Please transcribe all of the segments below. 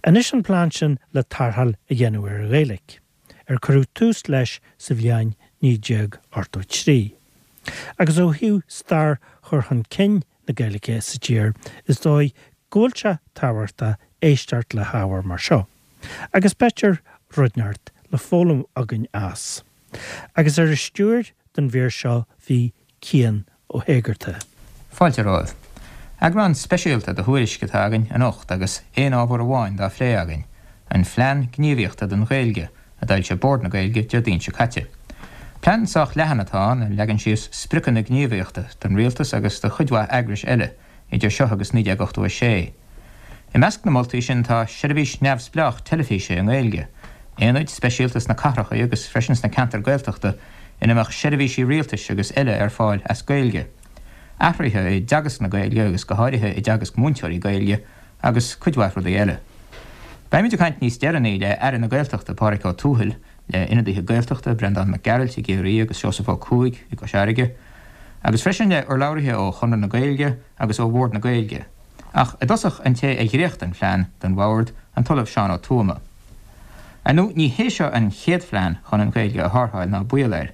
Anois an plean sin le tarrtháil a dhéanamh ar an Ghaeilge, ar cuireadh tús leis sa bhliain 1983. Agus ó thaobh stair chur chun cinn na Gaeilge sa tír, is dóigh go bhfuil sé tábhachtach éisteacht le hábhar mar seo. Agus b'fhéidir rud inteacht le foghlaim againn as. Agus ar an stiúir don mhír seo bhí Cian Ó hÉigeartaigh. Fáilte romhaibh. Eagrán speisialta de Thuairisc atá againn anocht agus aon ábhar amháin dá phlé againn, an Phlean Gníomhaíochta don Ghaeilge, a d'fhoilsigh Bord na Gaeilge Déardaoin seo caite. Plean sách leathan atá ann a leagann síos spriocanna gníomhaíochta don rialtas agus do chuid mhaith eagrais eile idir seo agus 1986. I measc na moltaí sin tá seirbhís neamhspleách teilifíse i nGaeilge, aonaid speisialta sna cathracha agus freisin sna ceantair Gaeltachta ina mbeadh seirbhísí rialtais agus eile ar fáil as Gaeilge, athruithe i dteagasc na Gaeilge agus go háirithe i dteagasc múinteoirí Gaeilge agus cuid mhaith rudaí eile. Beimid ag caint níos deireanaí le Aire na Gaeltachta Pádraig Ó Tuathail, le ionadaithe Gaeltachta, Breandán Mac Gearailt i gCiarraí agus Seosamh Ó Cuaig i gCois Fharraige, agus freisin le urlabhraithe ó Chonradh na Gaeilge agus ó Bhord na Gaeilge. Ach i dtosach an té a dhréacht an phlean don Bhord, an tOllamh Seán Ó Tuama. Ar ndóigh ní hé seo an chéad phlean chun an Ghaeilge a tharrtháil ná baol air.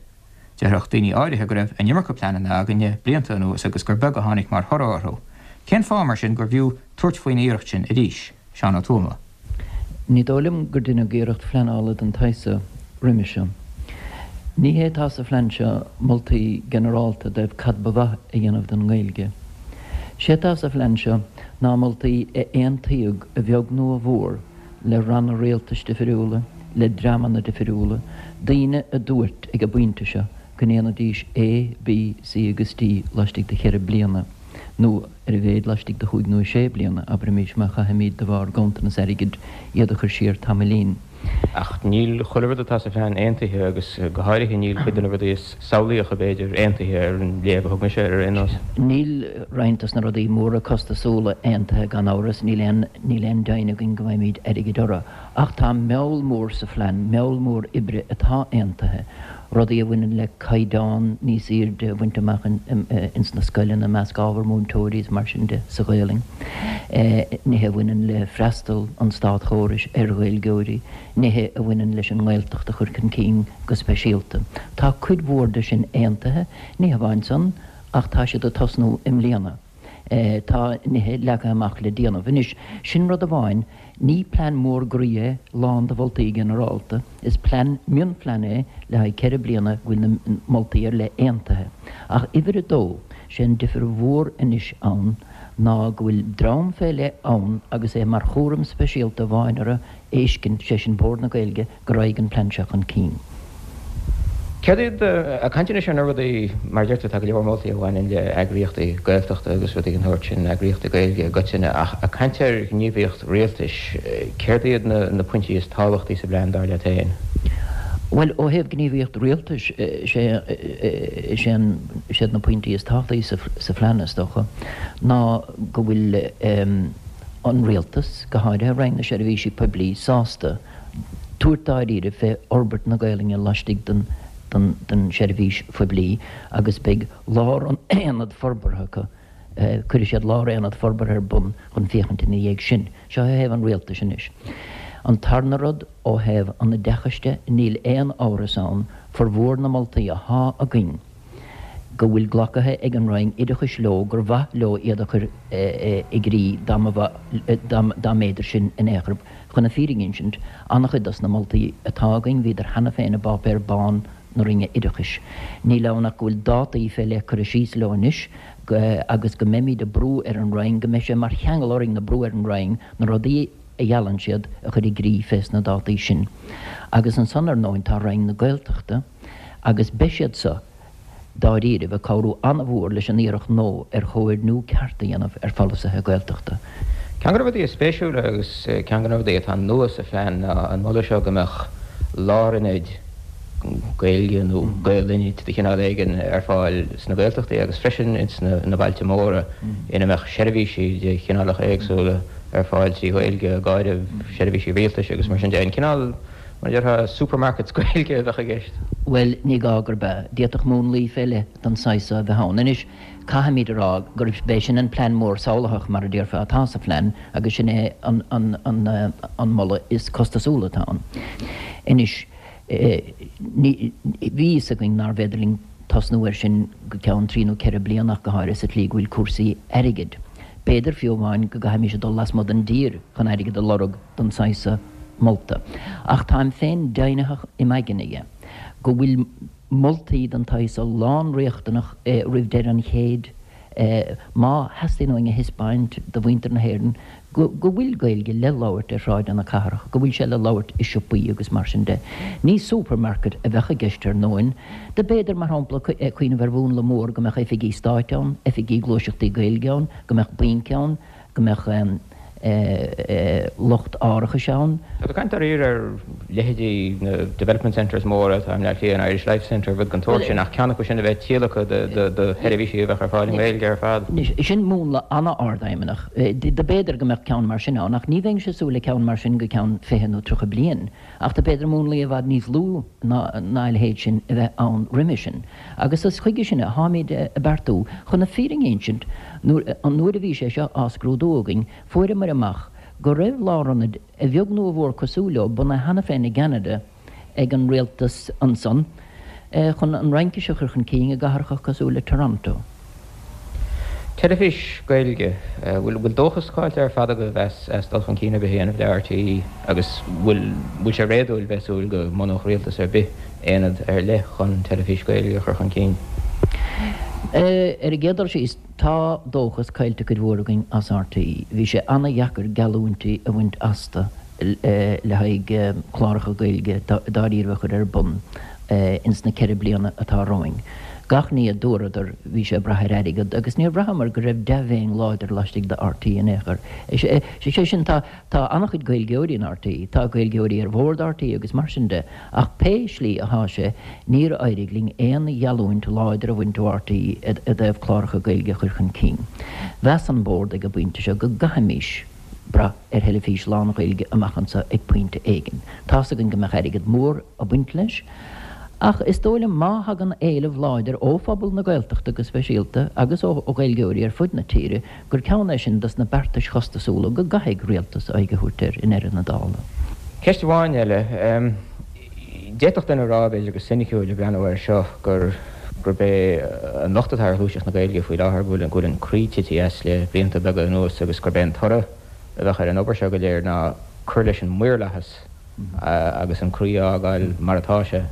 Déarfadh daoine áirithe go raibh an iomarca pleananna againn le blianta anuas agus gur beag a tháinig mar thoradh orthu. Cén fáth mar sin gurbh fhiú tabhairt faoin iarracht sin arís? Seán Ó Tuama. Ní dóigh liom gur deineadh iarracht phleanála den tsaghas seo roimhe seo. Ní hé atá sa phlean seo moltaí ginearálta i dtaobh cad ba mhaith a dhéanamh don nGaeilge. Sé atá sa phlean seo ná moltaí a aontaíodh a bheag nó a mhór le ranna rialtais difiriúla, le dreamanna difiriúla, daoine a dúirt ag an bpointe seo go ndéanfaidís A, B, C agus D laistigh de cheithre bliana nó ar a mhéad laistigh de chúig nó sé bliana, abraimís, má chaithfimid de bharr ganntanas airgid iad a chur siar tamaillín. Ach níl chuile rud atá sa phlean aontaithe agus go háirithe níl cuid de na rudaí is samhlaíocha, b'fhéidir, aontaithe ar an léamh a thug mise air ar aon nós. Níl roinnt dos na rudaí móra costasúla aontaithe gan amhras, níl aon níl aon deimhin againn go bhfaighimid airgead orthu. Ach tá meall mór sa phlean, meall mór oibre atá aontaithe, rudaí a bhaineann le caighdeán níos airde a bhaint amach ins na scoileanna, i measc ábhar múinteoirí is mar sin de sa Ghaelainn, nithe a bhaineann le freastal an státchórais ar Ghaeilgeoirí, nithe a bhaineann leis an nGaeltacht a chur chun cinn go speisialta. Tá cuid mhór de sin aontaithe, ní hamháin san ach tá siad ag tosnú i mbliana. Tá nithe leagtha amach le déanamh. Anois, sin rud amháin. Ní plean mór groí é, lán de mholtaí ginearálta. Is plean, mionphlean é le haghaidh ceithre bliana go bhfuil na moltaí ar leith aontaithe. Ach uimhir a dó, sé an difir mhór anois ann ná go bhfuil dream fé leith ann agus é mar chúram speisialta amháin orthu fheiscint, sé sin Bord na Gaeilge, go raghaidh an plean seo chun cinn. Céard iad, ag caint anois ar na rudaí, mar a deir tú, tá go leor moltaí a bhaineann le eagraíochtaí Gaeltachta agus rudaí den sórt sin, eagraíochtaí Gaeilge i gcoitinne, ach ag caint ar ghníomhaíocht rialtais, céard iad na pointí is tábhachtaí sa bplean, dar leat féin? Bhuel, ó thaobh gníomhaíocht rialtais, sé, sé an, siad na pointí is tábhachtaí sa phlean, is dócha, ná go bhfuil an rialtas, go háirithe Roinn na Seirbhísí Poiblí, sásta tabhairt dáiríre fé fhorbairt na Gaelainne laistigh den den seirbhís phoiblí agus beidh lár-aonad forbartha acu, cuirfidh siad lár-aonad forbartha ar bun chun féachaint ina dhiaidh sin. Seo ó thaobh an rialtais anois. An tarna rud, ó thaobh an oideachais de, níl aon amhras ann, formhór na moltaí athá againn, go bhfuil glacaithe ag an Roinn Oideachais leo gur mhaith leo iad a chur i gcrích dá mb'fhéidir sin in aon chor. Chun na fírinne a insint, an-chuid dos na moltaí atá againn bhíodar cheana féin i bpáipéar bán na Roinne Oideachais. Níl ann ach go bhfuil dátaí fé leith curtha síos leo anois agus go mbeimid ag brú ar an Roinn, go mbeidh sé mar cheangal orainn ag brú ar an Roinn na rudaí a gheallann siad a chur i gcrích fés na dátaí sin. Agus ansan ar ndóin tá Roinn na Gaeltachta agus beidh siad so, dáiríribh, ag cabhrú an-mhór leis an iarracht nua ar chomhoirniú ceart a dhéanamh ar pholasaithe Gaeltachta. Ceann de na rudaí is spéisiúla agus ceann de na rudaí atá nua sa phlean ná an moladh seo go mbeadh lárionaid Gaeilge nó Gael-ionaid de chineál éigin ar fáil sna Gaeltachtaí agus freisin ins na bailte móra ina mbeadh seirbhísí de chineálacha éagsúla ar fáil trí Ghaeilge, ag áireamh seirbhísí rialtais agus mar sin de. An cineál Mar a déarfá, supermarkets Gaeilge a bheadh i gceist. Bhuel, ní gá gurb ea. D'fhéadfadh múnlaí fé leith den saghas so a bheith ann. Anois, caithfimid a rá gurb é sin an plean mór samhlaitheach, mar a déarfá, atá sa phlean agus sin é an moladh is costasúla atá ann. Anois, ní, bhí fhios againn nárbh fhéidir linn tosnú air sin go ceann trí nó ceithre bliana ach go háirithe sa tslí go bhfuil cúrsaí airgid. B'fhéidir fiú amháin go gcaithfimis a dul lasmuigh den dtír chun airgead a lorg don saghas so molta. Ach táim féin deimhnitheach im aigne dhe go bhfuil moltaí den tsaghas so lán-riachtanach roimh deireadh an chéid má theastaíonn uainn a thaispeáint do mhuintir na hÉireann go bhfuil Gaeilge le labhairt ar shráideanna cathrach, go bhfuil sé le labhairt i siopaí agus mar sin de. Ní supermarket a bheadh i gceist ar ndóin. Do b'fhéidir, mar shampla, cuimhneamh ar mhúnla mór go mbeadh oifigí stáit ann, oifigí gluaiseachtaí Gaeilge ann, go mbeadh bainc ann, go mbeadh lucht árachais ann. Tá tú ag caint dáiríre ar leithéidí na development centres móra atá i mBleá Cliath, an Irish Life Centre, rud den tsórt sin, ach ceann acu sin a bheith tíolactha do sheirbhísí a bheadh ar fáil i nGaeilge ar fad. Anois, sin múnla an-ardfheidhmeannach. Do b'fhéidir go mbeadh ceann mar sin ann, ach ní bheinnse ag súil le ceann mar sin go ceann 20 nó 30 bliain. Ach do b'fhéidir múnlaí i bhfad níos lú ná a leithéid sin a bheith ann roimhe sin. Agus is chuige sin a tháimid ag beartú. Chun na fírinne a insint, an uair a bhí sé seo á scrúdú againn, fuaireamar amach go raibh lárionaid, a bheag nó a mhór cosúil leo, bunaithe cheana féin i gCeanada ag an rialtas ansan, chun an Fhraincis a chur chun cinn i gcathracha cosúil le Toronto. Teilifís Gaeilge, bhfuil dóchas caillte ar fad agaibh as dul chun cinn ar bith a dhéanamh le RTÉ agus bhfuil bhfuil sé réadúil bheith ag súil go mbunódh rialtas ar bith aonad ar leith chun teilifís Gaeilge a chur chun cinn? Ar an gcéad dul síos, tá dóchas caillte cuid mhór againn as RTÉ. Bhí sé an-dheacair geallúintí a bhaint astu. le haghaidh cláracha Gaeilge dáiríre a chur ar bun ins na 4 bliana atá romhainn. Gach ní a dúradar, bhí sé ag brath ar airgead agus níor bhraitheamar go raibh dea-mhéin láidir laistigh de RTÉ in aon chor. Sé sin, tá tá an-chuid Gaeilgeoirí in RTÉ, tá Gaeilgeoirí ar bhord RTÉ agus mar sin de, ach pé slí athá sé, níor éirigh linn aon gheallúint láidir a bhaint ó RTÉ i dtaobh cláracha Gaeilge a chur chun cinn. Mheas an Bord ag an bpointe seo go gcaithfimís brath ar theilifís lán-Ghaeilge amach anseo ag pointe éigin. Tá's againn go mbeadh airgead mór ag baint leis, ach is dóigh liom má thagann éileamh láidir ó phobal na Gaeltachta go speisialta agus ó Ghaeilgeoirí ar fud na tíre gur ceann é sin dos na beartais chostasúla go gcaithfidh rialtas aghaidh a thabhairt air i ndeireadh na dála. Ceist amháin eile. D'fhéadfadh duine a rá, b'fhéidir go soiniciúil, ag breathnú air seo, gur gurb é an locht atá ar ghluaiseacht na Gaeilge faoi láthair go bhfuil go bhfuil an croí tite as le blianta beaga anuas agus gurb é an toradh a bheadh ar an obair seo go léir ná cur leis an maorlathas agus an croí a fhágáil mar atá sé.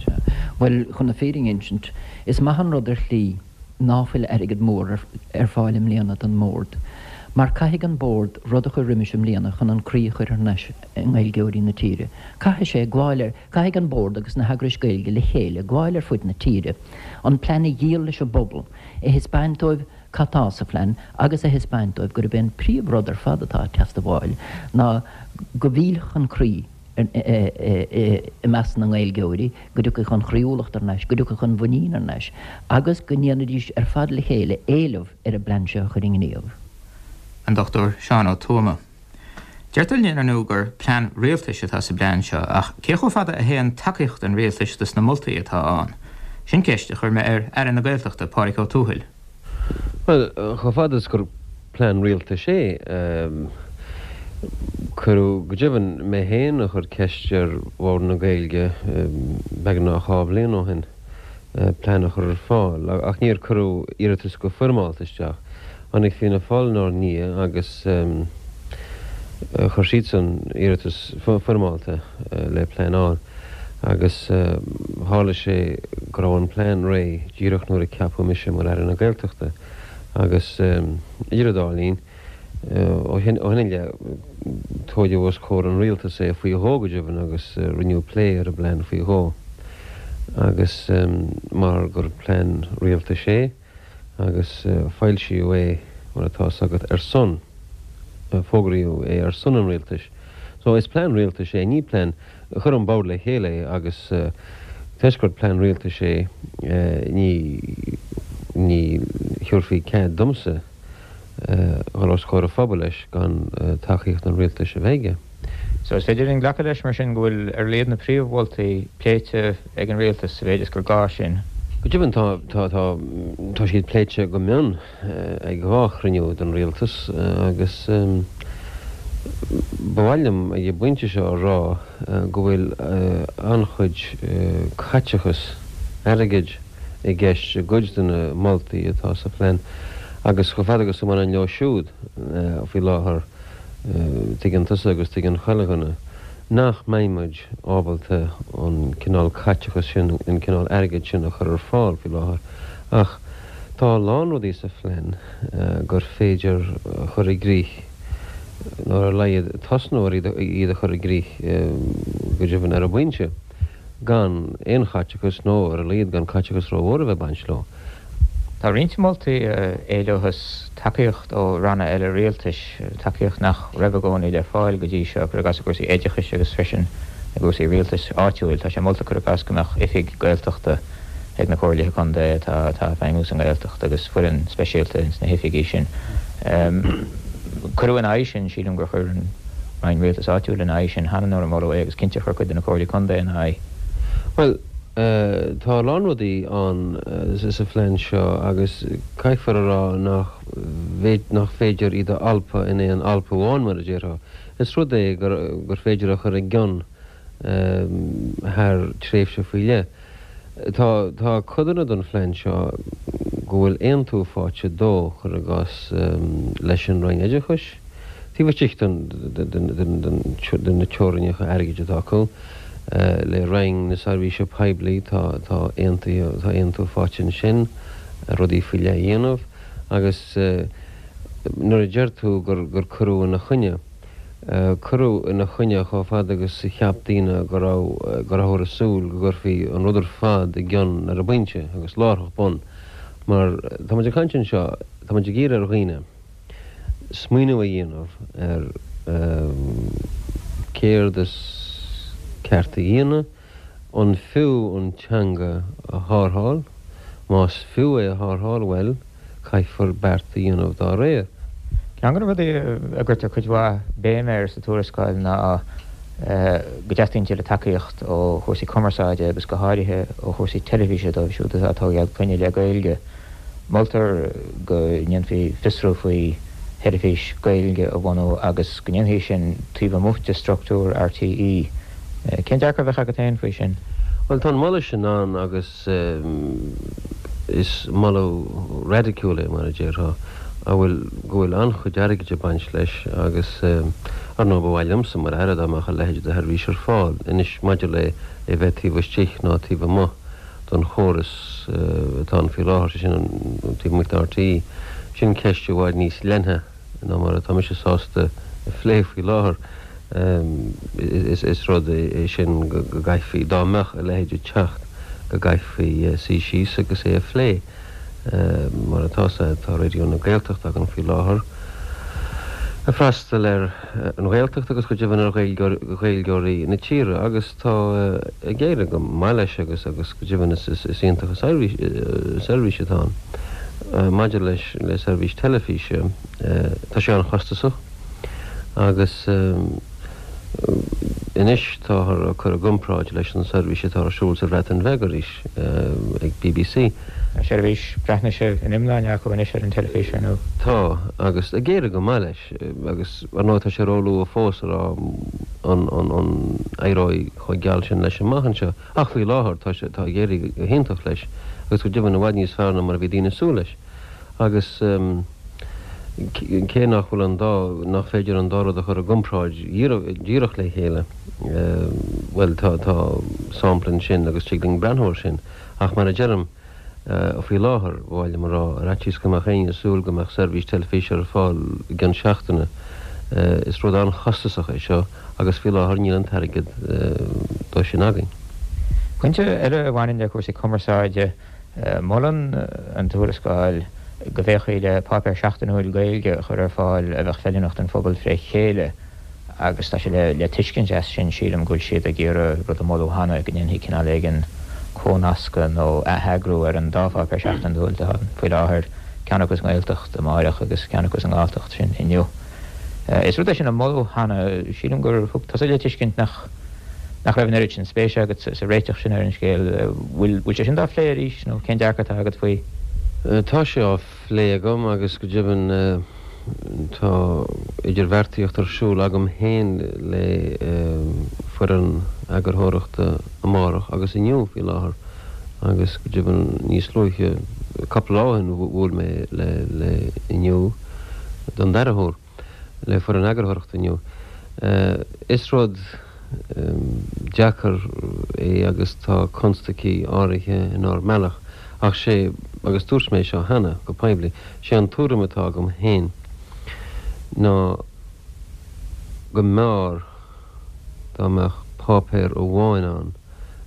Bhuel, chun na fírinne a insint, is maith an rud ar shlí ná fuil airgead mór ar fáil i mbliana don mBord, mar caithfidh an Bord rud a chur roimis i mbliana chun an croí a chur thar n-ais i nGaeilgeoirí na tíre. Caithfidh sé gabháil ar, caithfidh an Bord agus na heagrais Gaeilge le chéile gabháil ar fud na tíre, an plean a dhíol leis an bpobal, a thaispeáint dóibh cad tá sa phlean agus a thaispeáint dóibh gurb é an príomh rud ar fad atá ag teastabháil ná go bhfillfeadh an croí i measc na nGaeilgeoirí, go dtiocfadh an chroíúlacht thar n-ais, go dtiocfadh an mhuinín thar n-ais agus go ndéanfaidís ar fad le chéile éileamh ar an bplean seo a chur i ngníomh. An Dr Seán Ó Tuama. Deirtear linn ar ndóigh gur plean rialtais atá sa bplean seo ach cé chomh fada a théann tacaíocht an rialtais dos na moltaí atá ann? Sin ceist a chuir mé ar Aire na Gaeltachta, Pádraig Ó Tuathail. Bhuel, chomh fada is gur plean rialtais é, cuireadh, go deimhin, mé féin a chuir ceist ar Bhord na Gaeilge beagnach dhá bhliain ó shin plean a chur ar fáil ach níor cuireadh iarratas go foirmeálta isteach. Tháinig Fianna Fáil inár ndiaidh agus chuir siadsan iarratas foirmeálta le plean a fháil agus tharla sé go raibh an plean réidh díreach nuair a ceapadh mise mar Aire na Gaeltachta agus idir an dá linn, ó shin i leith, tóigeadh os comhair an Rialtais é faoi dhó go deimhin agus rinneadh plé ar an bplean faoi dhó agus mar gur plean rialtais é, agus foilsíodh é, mar atá 'fhios agat, ar son, fógraíodh é ar son an rialtais. So, is plean rialtais é, ní plean, chuir an Bord le chéile é agus toisc gur plean rialtais é, ní, ní thiúrfaí cead domsa dhul os comhair an phobail leis gan tacaíocht an rialtais a bheith aige. So is féidir linn glacadh leis mar sin go bhfuil ar a laghad na príomh-mholtaí pléite ag an Rialtas sa mhéid is gur gá sin. Go deimhin tá, tá, tá, tá siad pléite go mion ag 2 chruinniú den Rialtas agus ba mhaith liom ag an bpointe seo a rá go bhfuil an-chuid caiteachas airgid i gceist i gcuid de na moltaí atá sa phlean agus chomh fada agus a bhaineann leo siúd faoi láthair tuigeann tusa agus tuigeann chuile dhuine nach mbeidh muid ábalta an cineál caiteachas sin, an cineál airgid sin a chur ar fáil faoi láthair. Ach tá a lán rudaí sa phlean gur féidir a chur i gcrích, nó ar a laghad tosnú ar iad a chur i gcrích go deimhin ar an bpointe, gan aon chaiteachas nó ar a laghad gan caiteachas rómhór a bheith ag baint leo. Tá roinnt moltaí a éileochas tacaíocht ó ranna eile rialtais, tacaíocht nach raibh i gcónaí le fáil go dtí seo, cuir i gcás i gcúrsaí oideachais agus freisin i gcúrsaí rialtais áitiúil. Tá sé molta, cuir i gcás, go mbeadh oifig Gaeltachta ag na comhairlithe contae atá ag feidhmiú sa nGaeltacht agus foireann speisialta ins na hoifigí sin. Cuireadh ina aghaidh sin, sílim gur chuir an Roinn Rialtais Áitiúil ina aghaidh sin cheana nuair a moladh é agus cinnte chuir cuid de na comhairlí contae ina aghaidh. Bhuel, Tá a lán rudaí ann sa phlean seo agus caithfear a rá nach nach féidir iad a alpadh in aon alpadh amháin, mar a déarfá. Is rud é gur féidir a chur i gcion thar tréimhse faoi leith. Tá tá codanna den phlean seo go bhfuil aontú faighte dó, cuir i gcás, leis an Roinn Oideachais, taobh istigh de na teorainneacha airgid atá acu. Le Roinn na Seirbhíse Poiblí tá tá aontaithe tá aontú faighte ansin rudaí faoi leith a dhéanamh agus nuair a deir tú gur gur cuireadh ina choinne, cuireadh ina choinne chomh fada agus a cheap daoine go raibh go rabhthar ag súil go gcuirfí an rud ar fad i gcion ar an bpointe agus láithreach bonn mar tá muid ag caint anseo tá muid ag iarraidh ar dhaoine smaoineamh a dhéanamh ar céard is ceart a dhéanamh, an fiú an teanga a tharrtháil, más fiú é a tharrtháil, bhuel, caithfear beart a dhéanamh dá réir. Ceann de na rudaí a gcuirtear cuid mhaith béime air sa tuarascáil ná go dteastaíonn tuilleadh tacaíocht ó chúrsaí cumarsáide agus go háirithe ó chúrsaí teilifíse dóibh siúd atá ag tógáil clainne le Gaeilge. Moltar go ndéanfaí fiosrú faoi sheirbhís Gaeilge a bhunú agus go ndéanfaí sin taobh amuigh de struchtúr RTÉ. Cén dearcadh a bheadh agat féin faoi sin? Bhuel, tá an moladh sin ann agus is moladh raidiciúil é, mar a déarfá, a bhfuil, go bhfuil an-chuid airgid ag baint leis agus, ar ndóigh, ba mhaith liomsa mar Aire dá mbeadh a leithéid de sheirbhís ar fáil. Anois, maidir le é bheith taobh istigh ná taobh amuigh, don chóras atá ann faoi láthair, sé sin an taobh amuigh de RTÉ. Sin ceist i bhfad níos leithne ná mar atá mise sásta a phlé faoi láthair. Is rud é sin go gcaithfí, dá mbeadh a leithéid ag teacht, go gcaithfí suí síos agus é a phlé. Mar atá, tá Raidió na Gaeltachta againn faoi láthair ag freastal ar an Ghaeltacht agus go deimhin ar Ghaeilgeoirí na tíre agus tá ag éirí go maith leis agus agus go deimhin is iontach an seirbhís atá ann. Maidir leis le seirbhís teilifíse, tá sé an-chostasach agus anois táthar á cur i gcomparáid leis an seirbhís atá ar siúl sa Bhreatain Bheag arís ag BBC. Tá seirbhís Breatnaise in iomláine acu anois ar an teilifís, ar ndóigh. Tá, agus ag éirí go maith leis, agus ar ndóigh tá sé róluath fós a rá an an éireoidh chomh geal sin leis amach anseo, ach faoi láthair tá sé, tá ag éirí go hiontach leis, agus go deimhin i bhfad níos fearr ná mar a bhí daoine ag súil leis. Agus cé nach bhfuil an dá, nach féidir an dá rud a chur i gcomparáid dhíreach le chéile, bhuel tá, tá sampla ansin agus tig linn breathnú air sin. Ach mar a deirim, faoi láthair, ba mhaith liom a rá, ar fhaitíos go mbeadh éinne ag súil go mbeadh seirbhís teilifíse ar fáil i gcionn seachtaine, is rud an-chostasach é seo agus faoi láthair níl an t-airgead dó sin againn. Pointe eile a bhaineann le cúrsaí cumarsáide, molann an tuarascáil go bhféachfaí le páipéar seachtainiúil Gaeilge a chur ar fáil a bheadh feiliúnach don phobal fré chéile. Agus tá sé le tuiscint as sin, sílim, go bhfuil siad ag iarraidh rud a moladh cheana, go ndéanfaí cineál éigin comhnascadh nó atheagrú ar an dá pháipéar seachtainiúil atá ann faoi láthair, ceann acu sa nGaeltacht, Amárach, agus ceann acu sa nGalltacht, sin Inniu. Is rud é sin a moladh cheana. Sílim gur thug tusa le tuiscint nach nach raibh an oiread sin spéise agat sa réiteach sin ar an scéal. Bhfuil bhfuil sé sin dá phlé arís nó cén dearcadh atá agat faoi? Tá sé á phlé agam agus go deimhin tá idirbheartaíocht ar siúl agam féin le foireann eagarthóireachta Amárach agus Inniu faoi láthair agus go deimhin níos luaithe, cúpla lá ó shin, bhuail mé le Inniu don dara huair, le foireann eagarthóireachta Inniu. Is rud deacair é agus tá constaicí áirithe inár mbealach ach sé, agus dúirt mé seo cheana go poiblí, sé an tuairim atá agam féin ná go mb'fhearr dá mbeadh páipéar amháin ann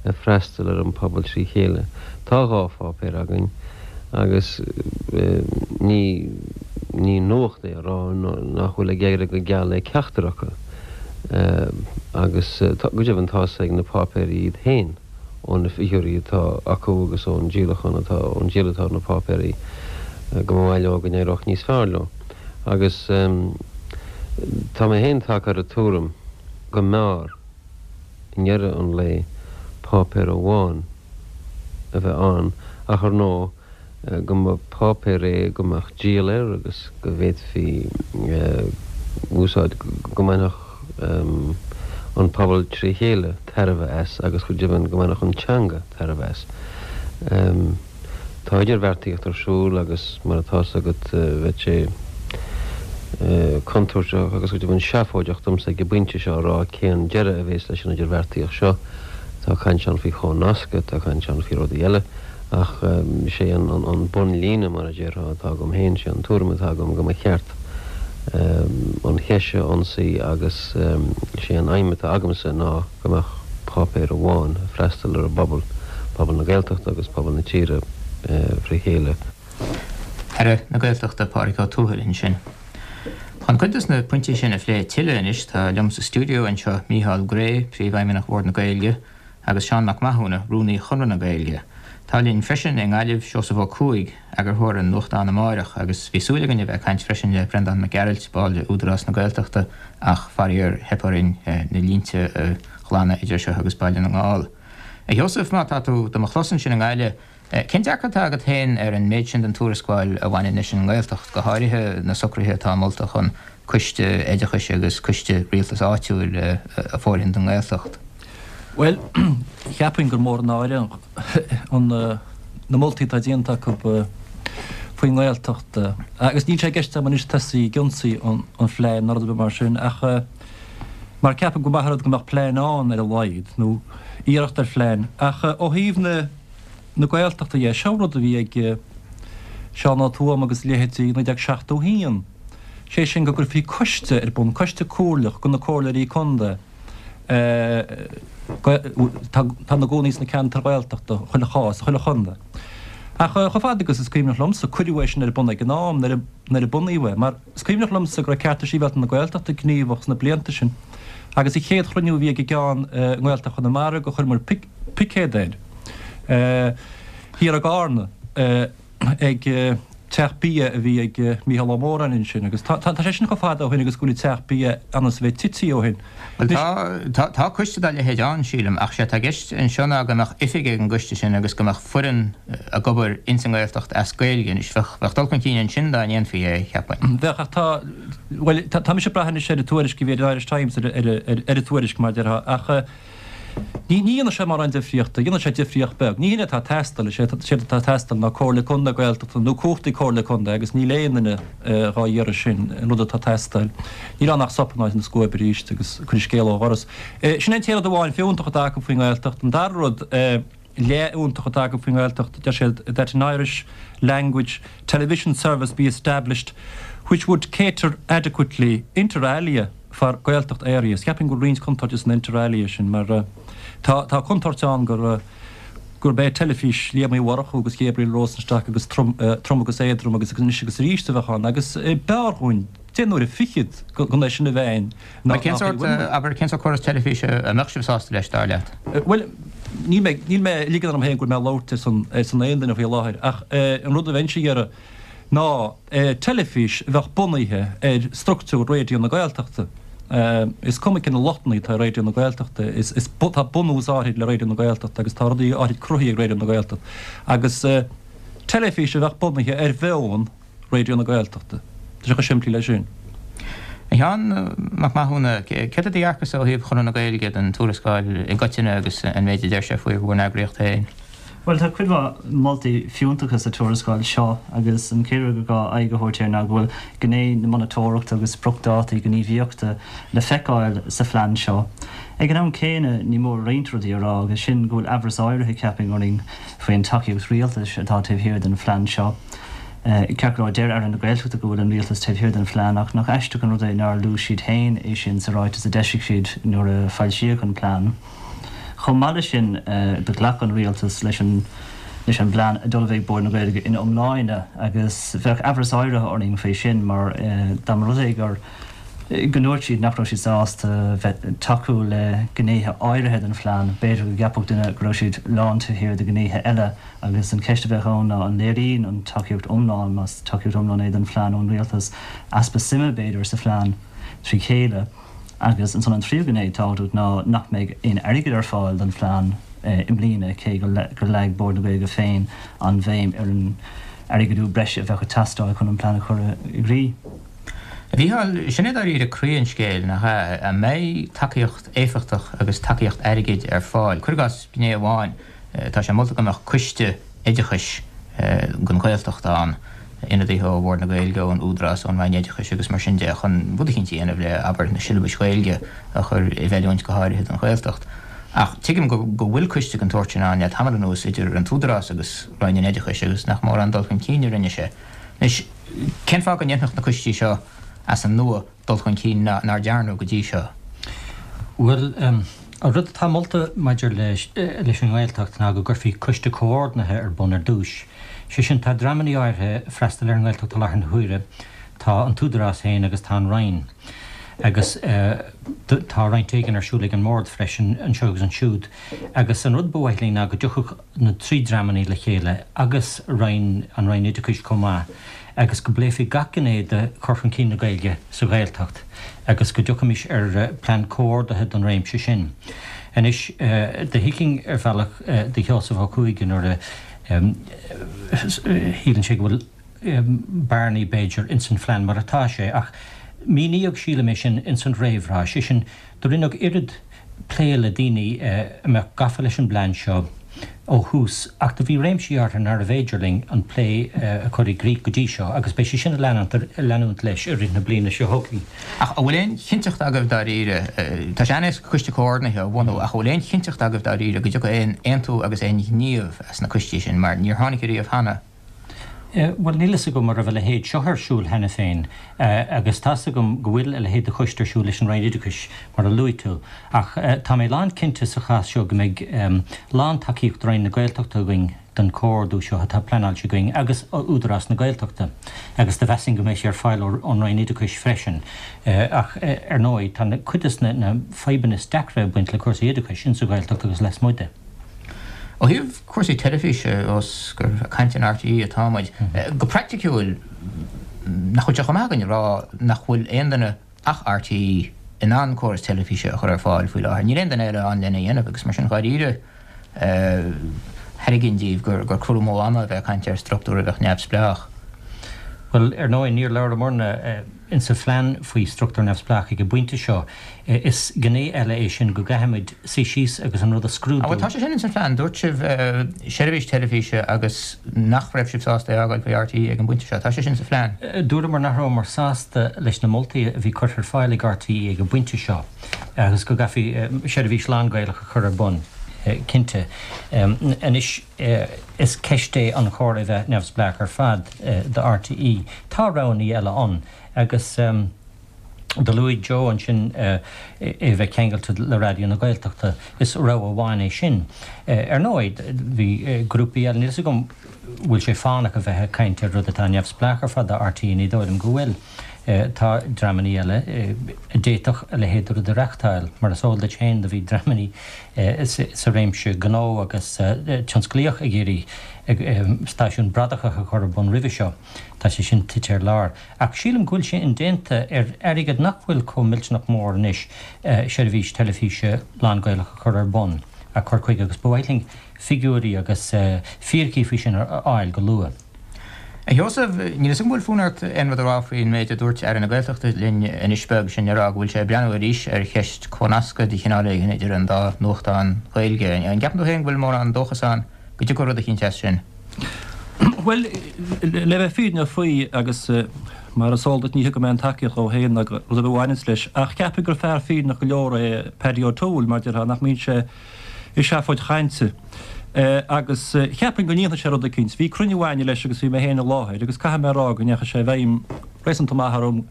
ag freastal ar an pobal trí chéile. Tá 2 pháipéar againn agus ní ní nuacht é a rá nach bhfuil ag éirí go geal le ceachtar acu agus go deimhin tá's ag na páipéirí iad féin ó na figiúirí atá acu agus ón díolachán atá ón díol atá ar na páipéirí go mba mhaith leo go n-éireodh níos fearr leo agus tá mé féin tagtha ar an tuairim go mb'fhearr i ndeireadh an lae, páipéar amháin a bheith ann ach ar ndóigh go mba páipéar é go mbeadh díol air agus go bhféadfaí úsáid, go mbainfeadh an pobal tré chéile tairbhe as agus go deimhin go mbainfeadh an teanga tairbhe as. Tá idirbheartaíocht ar siúl agus mar atá's agat bheadh sé contúirteach agus go deimhin seafóideach domsa ag an bpointe seo a rá cén deireadh a bhéas leis an idirbheartaíocht seo. Tá caint ann faoi chomhnascadh, tá caint ann faoi rudaí eile ach sé an bunlíne mar a déarfá atá agam féin, sé an tuairim atá agam go mba cheart an cheist seo a ionsaí agus sé an aidhm atá agamsa ná go mbeadh páipéar amháin ag freastal ar an bpobal, pobal na Gaeltachta agus pobal na tíre fré chéile. Aire na Gaeltachta Pádraig Ó Tuathail ansin. Chun cuid dos na pointí sin a phlé tuilleadh anois tá liom sa stiúideo anseo Mícheál Gray, Príomhfheidhmeannach Bhord na Gaeilge, agus Seán Mac Mathúna, Rúnaí Chonradh na Gaeilge. Tá linn freisin i nGaillimh Seosamh Ó Cuaig, eagarthóir an nuachtáin Amárach, agus bhí súil againn a bheith ag caint freisin le Breandán Mac Gearailt, ball de Údarás na Gaeltachta, ach faraor theip orainn na línte a ghlanadh idir seo agus Baile na nGall. A Sheosaimh, má tá tú do mo chlos ansin i nGaillimh, cén dearcadh atá agat féin ar an méid sin den tuarascáil a bhaineann leis an nGaeltacht, go háirithe na socruithe atá molta chun coiste oideachais agus coiste rialtais áitiúil a fhóirithint don nGaeltacht? Bhuel, cheapfainn gur mór an náire an na moltaí atá déanta acu faoin nGaeltacht. Agus níl sé i gceist agam anois tosaí ag ionsaí an phlean ná rud ar bith mar sin ach mar ceapaim go maith an rud go mbeadh plean ann ar a laghad, nó iarracht ar phlean. Ach ó thaobh na na Gaeltachta dhe, seo rud a bhí ag Seán Ó Tuama agus a leithéidí i 1971, sé sin go gcuirfí coiste ar bun, coiste comhairleach de na comhairleoirí contae, atá ina gcónaí sna ceantair Ghaeltachta, chuile chás, chuile chontae. Ach chomh fada agus is cuimhneach liomsa, cuireadh é sin ar bun ag an am nuair a bunaíodh é, mar is cuimhneach liomsa go raibh Cearta Sibhialta na Gaeltachta gníomhach sna blianta sin agus an chéad chruinniú a bhí ag an gceann i nGaeltacht Chonamara gur chuireamar picéad air thiar i gCarna. ag teach bia a bhí ag Mícheál Ó Móráin ansin agus tá sé sin chomh fada ó shin agus go bhfuil an teach bia ionnas a bheith tití ó shin. Bhuel tá, tá coiste dá leithéid ann, sílim, ach sé atá i gceist anseo ná go mbeadh oifig ag an gcoiste sin agus go mbeadh foireann ag obair ins an nGaeltacht as Gaeilge. Anois bheadh, bheadh dul chun cinn ansin dá ndéanfaí é, cheapfainn. Bheadh ach tá, bhuel tá mise ag brath anois ar an tuairisc a bhí ar an Irish Times, ar, ar, ar an tuairisc mar a déarfá ach, Ní dhéanfaidh sé mórán difríochta. Dhéanfaidh sé difríocht beag. Ní hin é atá ag teastáil. Is é atá ag teastáil ná Comhairle Contae Gaeltachta nó cumhachtaí Comhairle Contae agus níl aon duine dhá iarraidh sin, an rud atá ag teastáil. Níl ann ach sop in áit na scuaibe arís agus cuir an scéal ó dhoras. Sin é an t-aon rud amháin fiúntach atá acu faoin nGaeltacht. An dara rud leathfhiúntach atá acu faoin nGaeltacht, deir siad that an Irish language television service be established which would cater adequately, inter alia, for Gaeltacht areas. Cheapfainn go bhfuil roinnt contúirte san inter alia sin mar tá tá contúirt ann gur gurb é teilifís Liam Uí Mhurchú agus Gabriel Rosenstock agus trom trom agus éadrom agus anois agus arís a bheadh ann agus b'fhearr dhúinn deich n-uaire fichead gan é sin a bheith ann ná Cén sórt, abair, cén sórt córas teilifíse a mbeadh sibh sásta leis, dar leat? Bhuel, níl mé níl mé ag ligean orm féin go bhfuil mé ag labhairt ar son ar son aon duine faoi láthair ach an rud a bheinnse ag iarraidh. ná teilifís a bheadh bunaithe ar structúr Raidió na Gaeltachta. Is cuma cé na lochtanna atá ar Raidió na Gaeltachta, is tá bunús áithrid le Raidió na Gaeltachta agus tá rudaí áithrid cruthaithe ag Raidió na Gaeltachta. Agus teilifís a bheadh bunaithe ar mheon Raidió na Gaeltachta. Tá sé chomh simplí leis sin. A Sheáin Mac Mathúna, céard é do dhearcadh-sa ó thaobh Chonradh na Gaeilge den tuarascáil i gcoitinne agus an méid a deir sé faoi bhur n-eagraíocht féin? Bhuel, tá cuid mhaith moltaí fiúntacha sa tuarascáil seo agus an chéad rud gur gá aghaidh a thabhairt air ná go bhfuil gné na monatóireachta agus spriocdhátaí gníomhaíochta le feiceáil sa phlean seo. Ag an am céanna, ní mór roinnt rudaí a rá agus sin go bhfuil aimhreas áirithe, cheapfainn, orainn faoin tacaíocht rialtais atá taobh thiar den phlean seo. Ceart go leor, deir Aire na Gaeltachta go bhfuil an rialtas taobh thiar den phlean ach nach aisteach an rud é nár luaigh siad féin é sin sa ráiteas a d'eisigh siad nuair a foilsíodh an plean. Chomh maith leis sin, do ghlac an Rialtas leis an leis an bplean a d'ullmhaigh Bord na Gaeilge ina iomláine agus bheadh aimhreas áirithe orainn faoi sin mar dá mba rud é gur go ndúirt siad nach raibh siad sásta bheith tacú le gnéithe áirithe den phlean, b'fhéidir go gceapfadh duine go raibh siad lán taobh thiar de ghnéithe eile agus an cheist a bheadh ann ná an léiríonn an tacaíocht iomlán, más tacaíocht iomlán é don phlean ón Rialtas, easpa suime b'fhéidir sa phlean trí chéile. Agus ansan an tríú gné tábhachtach ná nach mbeidh aon airgead ar fáil don phlean i mbliana, cé gur leag Bord na Gaeilge féin an bhéim ar an airgeadú breise a bheadh ag teastáil chun an plean a chur i gcrích. A Mhícheáil, sin é dáiríre croí an scéil, nach ea? An mbeidh tacaíocht éifeachtach agus tacaíocht airgid ar fáil? Cuir i gcás gné amháin, Tá sé molta go mbeadh coiste oideachais don Ghaeltacht ann, ionadaithe ó Bhord na Gaeilge, ón Údarás, ón Roinn Oideachais agus mar sin de, chun rud eicínt a dhéanamh le, abair, na siollabais Ghaeilge a chur i bhfeiliúint go háirithe don Ghaeltacht. Ach tuigim go bhfuil coiste den tsórt sin ann le tamall anuas idir an tÚdarás agus Roinn an Oideachais agus nach mórán dul chun cinn a rinne sé. Anois, cén fáth go ndéanfadh na coistí seo as an nua dul chun cinn nár dearnadh go dtí seo? Bhuel, an rud atá molta maidir leis an nGaeltacht ná go gcuirfí coiste comhordaithe ar bun ar dtús. Sé sin, tá dreamannaí áirithe ag freastal ar an nGaeltacht i láthair na huaire, tá an tÚdarás féin agus tá an Roinn. Agus tá roinnt éigin ar siúl ag an mBord freisin, anseo agus ansiúd. Agus an rud ba mhaith linn ná go dtiocfadh na trí dreamannaí le chéile agus Roinn, an Roinn Oideachais chomh maith, agus go bpléifí gach gné de chur chun cinn na Gaeilge sa Ghaeltacht agus go dtiocfaimis ar plean comhordaithe don réimse sin. Anois, do thuigfinn ar bhealach do Sheosamh Ó Cuaig nuair a shíleann sé go bhfuil bearnaí, b'fhéidir, ins an phlean mar atá sé, ach míníodh, sílim, é sin ins an réamhrá, sé sin, Do rinneadh oiread plé le daoine a mbeadh gafa leis an bplean seo ó thús ach do bhí réimsí áirithe nárbh fhéidir linn an plé a chur i gcrích go dtí seo agus beidh sé sin ag leanúint leis i rith na bliana seo chugainn. Ach an bhfuil aon chinnteacht agaibh dáiríre, tá sé an-éasca coiste comhordaithe a bhunú, ach an bhfuil aon chinnteacht agaibh dáiríre go dtiocfaidh aon aontú agus aon ghníomh as na coistí sin mar níor tháinig ariamh cheana? Bhuel, níl fhios agam an raibh a leithéid seo ar siúl cheana féin, agus tá's agam go bhfuil a leithéid de choiste ar siúl leis an Roinn Oideachais, mar a luaigh tú, ach tá mé lán cinnte sa chás seo go mbeidh lán tacaíocht Roinn na Gaeltachta againn don chomhordú seo atá pleanáilte againn, agus Údarás na Gaeltachta, agus do mheasfainn go mbeidh sé ar fáil ón Roinn Oideachais freisin. Ach, ar ndóigh, tá cuid des na fadhbanna is deacra ag baint le cúrsaí oideachais insa Ghaeltacht agus lasmuigh de. Ó thaobh cúrsaí teilifíse, ós gur ag caint ar RTÉ atá muid, go praiticiúil, nach bhfuil sé chomh maith againn a rá nach bhfuil aon duine ach RTÉ in ann córas teilifíse a chur ar fáil faoi láthair? Níl aon duine eile ann lena dhéanamh agus mar sin dháiríre thairgfinn díbh gur cur amú ama a bheith ag caint ar struchtúr a bheadh neamhspleách. Bhuel, ar ndóigh, níor labhramarna insa phlean faoi struchtúr neamhspleách ag an bpointe seo. Is gné eile é sin go gcaithfimid suí síos agus an rud a scrúdú. Bhuel, tá sé sin ins an phlean. Dúirt sibh seirbhís teilifíse agus nach raibh sibh sásta é a fhágáil faoi RTÉ ag an bpointe seo. Tá sé sin sa phlean. Dúramar nach rabhamar sásta leis na moltaí a bhí curtha ar fáil ag RTÉ ag an bpointe seo agus go gcaithfí seirbhís lán-Ghaelach a chur ar bun, cinnte. Anois, is ceist é an chóir é bheith neamhspleách ar fad do RTÉ. Tá roghannaí eile ann agus do luaigh Joe ansin é bheith ceangailte le Raidió na Gaeltachta. Is rogha amháin é sin. Ar ndóigh, bhí grúpaí eile, níl 'fhios agam bhfuil sé fánach a bheith ag caint ar rud atá neamhspleách ar fad do RTÉ, ní dóigh liom go bhfuil. Tá dreamannaí eile a d'fhéadfadh a leithéid de rud a reachtáil. Mar is eol duit féin, do bhí dreamannaí sa réimse gnó agus tionsclaíoch ag iarraidh stáisiún bradach a chur ar bun roimhe seo. Tá sé sin tite ar lár. Ach sílim go bhfuil sé indéanta ar airgead nach bhfuil chomh millteanach mór anois seirbhís teilifíse lán-Ghaelach a chur ar bun, a chur chuige agus ba mhaith linn figiúirí agus fíricí faoi sin a fháil go luath. A Sheosaimh, níl 'fhios agam an bhfuil fonn ort aon rud a rá faoin méid a dúirt Aire na Gaeltachta linn anois beag, sin le rá go bhfuil sé ag breathnú arís ar cheist comhnascadh de chineál éigin idir an dá nuachtán Ghaeilge. An gceapann tú féin go bhfuil mórán dóchas ann go dtiocfaidh rud eicínt as sin? Bhuel, le bheith fírinneach faoi, agus mar is eol duit ní thugaim aon tacaíocht dhó féin ná rud ar bith a bhaineanns leis, ach cheapfainn gur fear fírinneach go leor é Paddy O'Toole, mar déarfá, nach mbíonn sé i seafóid chainte. Agus cheapfainn go ndéanfaidh sé rud eicínt. Bhí cruinniú a'inne leis agus bhí mé féin i láthair agus caithfidh mé a rá go ndeachaigh sé i bhfeidhm réasúnta maith orm.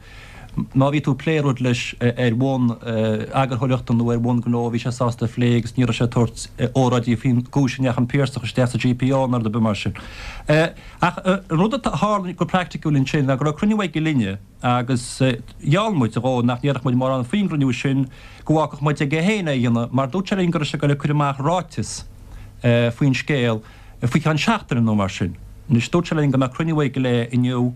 Má bhí tú ag plé rud leis ar bhonn eagarthóireachta nó ar bhonn gnó bhí sé sásta a phlé agus ní raibh sé ag tabhairt óráidí faoin gcúis a ndeachaigh an Piarsach isteach sa GPO nó rud ar bith mar sin. Ach an rud a tharla go praiticiúil ansin ná go raibh cruinniú aige linne, Agus gheall muid dhó nach ndéarfadh muid mórán faoin gcruinniú sin, go bhfágfadh muid aige féin é a dhéanamh, mar dúirt sé linn go raibh sé ag goil ag cur amach ráiteas faoin scéal faoi cheann seachtaine nó mar sin. Anois, dúirt sé linn go mbeadh cruinniú aige léi inniu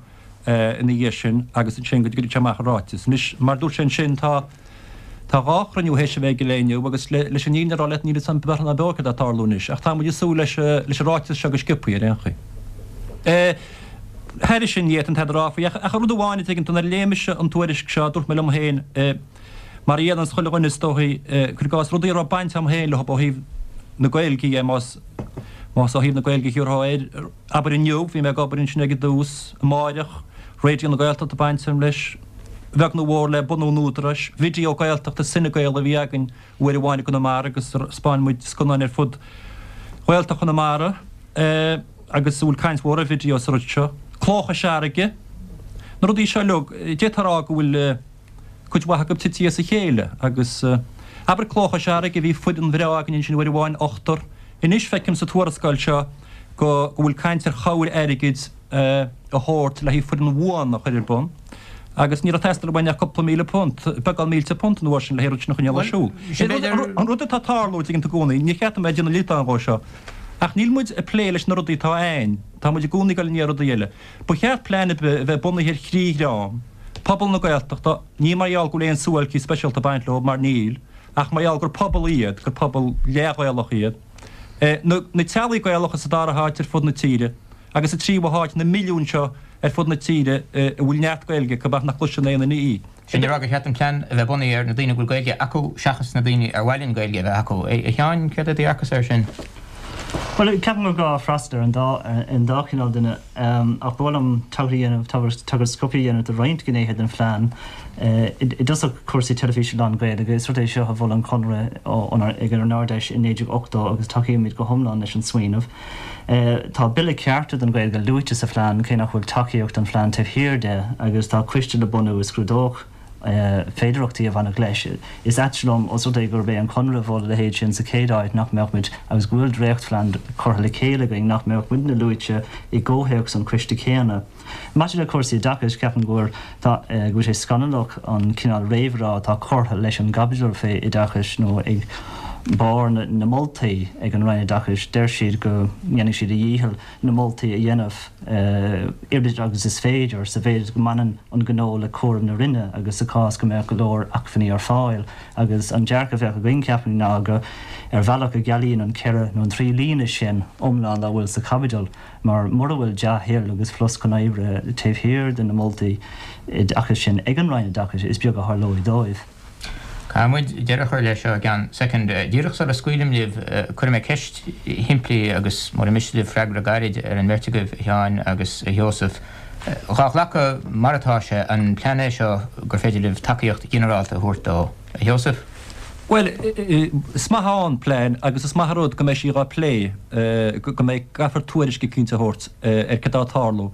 ina dhiaidh sin agus ansin go gcuirfeadh sé amach an ráiteas. Anois, mar dúirt sé ansin, tá. Tá 2 chruinniú théis a bheith aige léi inniu agus leis an fhírinne a rá leat níl fhios a'm beartha ná beo céard atá ag tarlú anois ach tá muid ag súil leis leis an ráiteas seo go sciobthaí ar aon chaoi. Thairis sin ní fhéadfainn tada a rá faoi ach ach rud amháin a dtuigeann tú nuair a léigh mise an tuairisc seo dúirt mé liom féin mar a dhéananns chuile dhuine is dóichí cuir i gcás rudaí a raibh baint a'm féin leo ó thaobh na Gaeilge dhe más más ó thaobh na Gaeilge a thiúrfá air Abair inniu, bhí mé ag obair ansin ag an dtús, amáireach, Raidió na Gaeltachta baint agam leis, bheag nó mhór le bunú an Údaráis, Video Gaeltachta Cinegael a bhí againn uair amháin i gConamara agus 'spáin muid scannáin ar fud Ghaeltacht Chonamara agus a bhfuil caint mhór ar video sa rud seo. Cló Chois Fharraige, na rudaí seo uilig, d'fhéadfá a rá go bhfuil. cuid mhaith acu tite as a chéile agus, abair Cló Chois Fharraige, bhí foireann bhreá againn ansin uair amháin, ochtar. Anois feicim sa tuarascáil seo go go bhfuil caint ar chabhair airgid a thabhairt le haghaidh foireann bhuan a chur ar bun agus ní raibh ag teastáil uainn ach cúpla £1,000, beagán mílte punt an uair sin le haghaidh an rud sin a choinneáil ar siúl. An rud atá ag tarlú, tuigeann tú i gcónaí, ní cheart dom a bheith ag déanamh liotán dhó seo, ach níl muid ag plé leis na rudaí atá a'ainn, tá muid i gcónaí ag dul i ndiaidh rudaí eile. Ba cheart plean ar bith a bheith bunaithe ar thrí dhream, pobal na Gaeltachta, ní mar gheall go bhfuil aon suáilcí speisialta ag baint leo, mar níl, ach mar gheall gur pobal iad, gur pobal leath-Ghaelach iad, na na teaghlaigh Gaelacha sa dara háit ar fud na tíre, agus sa tríú háit, na milliúin seo ar fud na tíre a bhfuil neart Gaeilge acu ach nach gcloiseann aon duine í. Sin le rá gur cheart an plean a bheith bunaithe ar na daoine a bhfuil Gaeilge acu seachas na daoine ar mhaith linn Gaeilge a bheith acu. A Sheáin, céard é do dhearcadhsa air sin? Bhuel, ceapaim gur gá freastal ar an dá, ar an dá chineál duine. Ach ba mhaith liom tagairt a dhéanamh, tagairt sciobtha a dhéanamh do roinnt gnéithe den phlean. I dtosach, cúrsaí teilifíse lán-Ghaeilge. Is rud é seo a mhol an Conradh ag ár nArd-Fheis i 1980 agus tacaímid go hiomlán leis an smaoineamh. Tá Bille Cearta don Ghaeilge luaite sa phlean, cé nach bhfuil tacaíocht don phlean taobh thiar de, agus tá coiste le bunú a scrúdódh féidearthachtaí a bhainfeadh leis. Is ait liom, os rud é gurb é an Conradh a mhol a leithéid sin sa chéad áit, nach mbeadh muid, agus go bhfuil dréachtphlean curtha le chéile againn, nach mbeadh muidne luaite i gcomhthéacs an choiste céanna. Maidir le cúrsaí oideachais, ceapaim go bhfuil go bhfuil sé scannalach an cineál réamhrá atá curtha leis an gcaibidil fé oideachais nó ag barr na moltaí ag an Roinn Oideachais. Deir siad go ndéanfaidh siad a dhícheall na moltaí a dhéanamh oiread agus is féidir sa mhéid go mbaineann an gnó le cúram na Roinne agus sa chás go mbeadh go leor acmhainní ar fáil. Agus an dearcadh a bheadh againn, ceapaim, ná go ar bhealach go gcealaíonn an ceithre nó an trí líne sin iomlán dá bhfuil sa chaibidil. Mar mura bhfuil dea-thoil agus flosc chun oibre taobh thiar de na moltaí oideachais sin ag an Roinn Oideachais, is beag a tharlóidh dóibh. Caithfidh muid deireadh a chur leis seo i gceann soicind. Díreach sula scaoilim libh, cuirfidh mé ceist shimplí agus mura miste libh freagra gairid ar an mbeirt agaibh, a Sheáin agus a Sheosaimh. Dhá ghlacadh mar atá sé, an plean é seo gur féidir libh tacaíocht ghinearálta a thabhairt dó? A Sheosaimh? Bhuel, is maith an plean agus is maith an rud go mbeidh sí dhá plé, go mbeidh, caithfear tuairisc eicínt a thabhairt ar cad tá ag tarlú.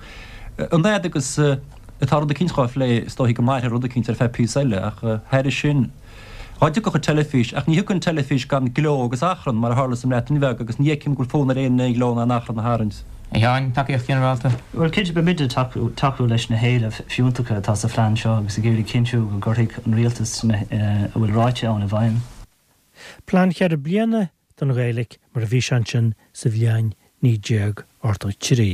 An fhad agus atá rud eicínt dhá phlé, is dóichí go mairfidh rud eicínt ar feadh píosa eile ach thairis sin, dhá dtiocfadh an teilifís, ach ní thiocfaidh an teilifís gan gleo agus achrann, mar a tharla sa mBreatain Bheag agus ní fheicim go bhfuil fonn ar éinne aon ghleo ná aon achrann a tharraingt. A Sheáin, tacaíocht ghinearálta? Bhuel, cinnte, beimid ag tacú leis na héilimh fiúntacha atá sa phlean seo agus ag iarraidh cinntiú go gcuirfidh an rialtas a bhfuil ráite ann i bhfeidhm. Plean cheithre bliana don Ghaeilge mar a bhí sé ansin sa bhliain 1983.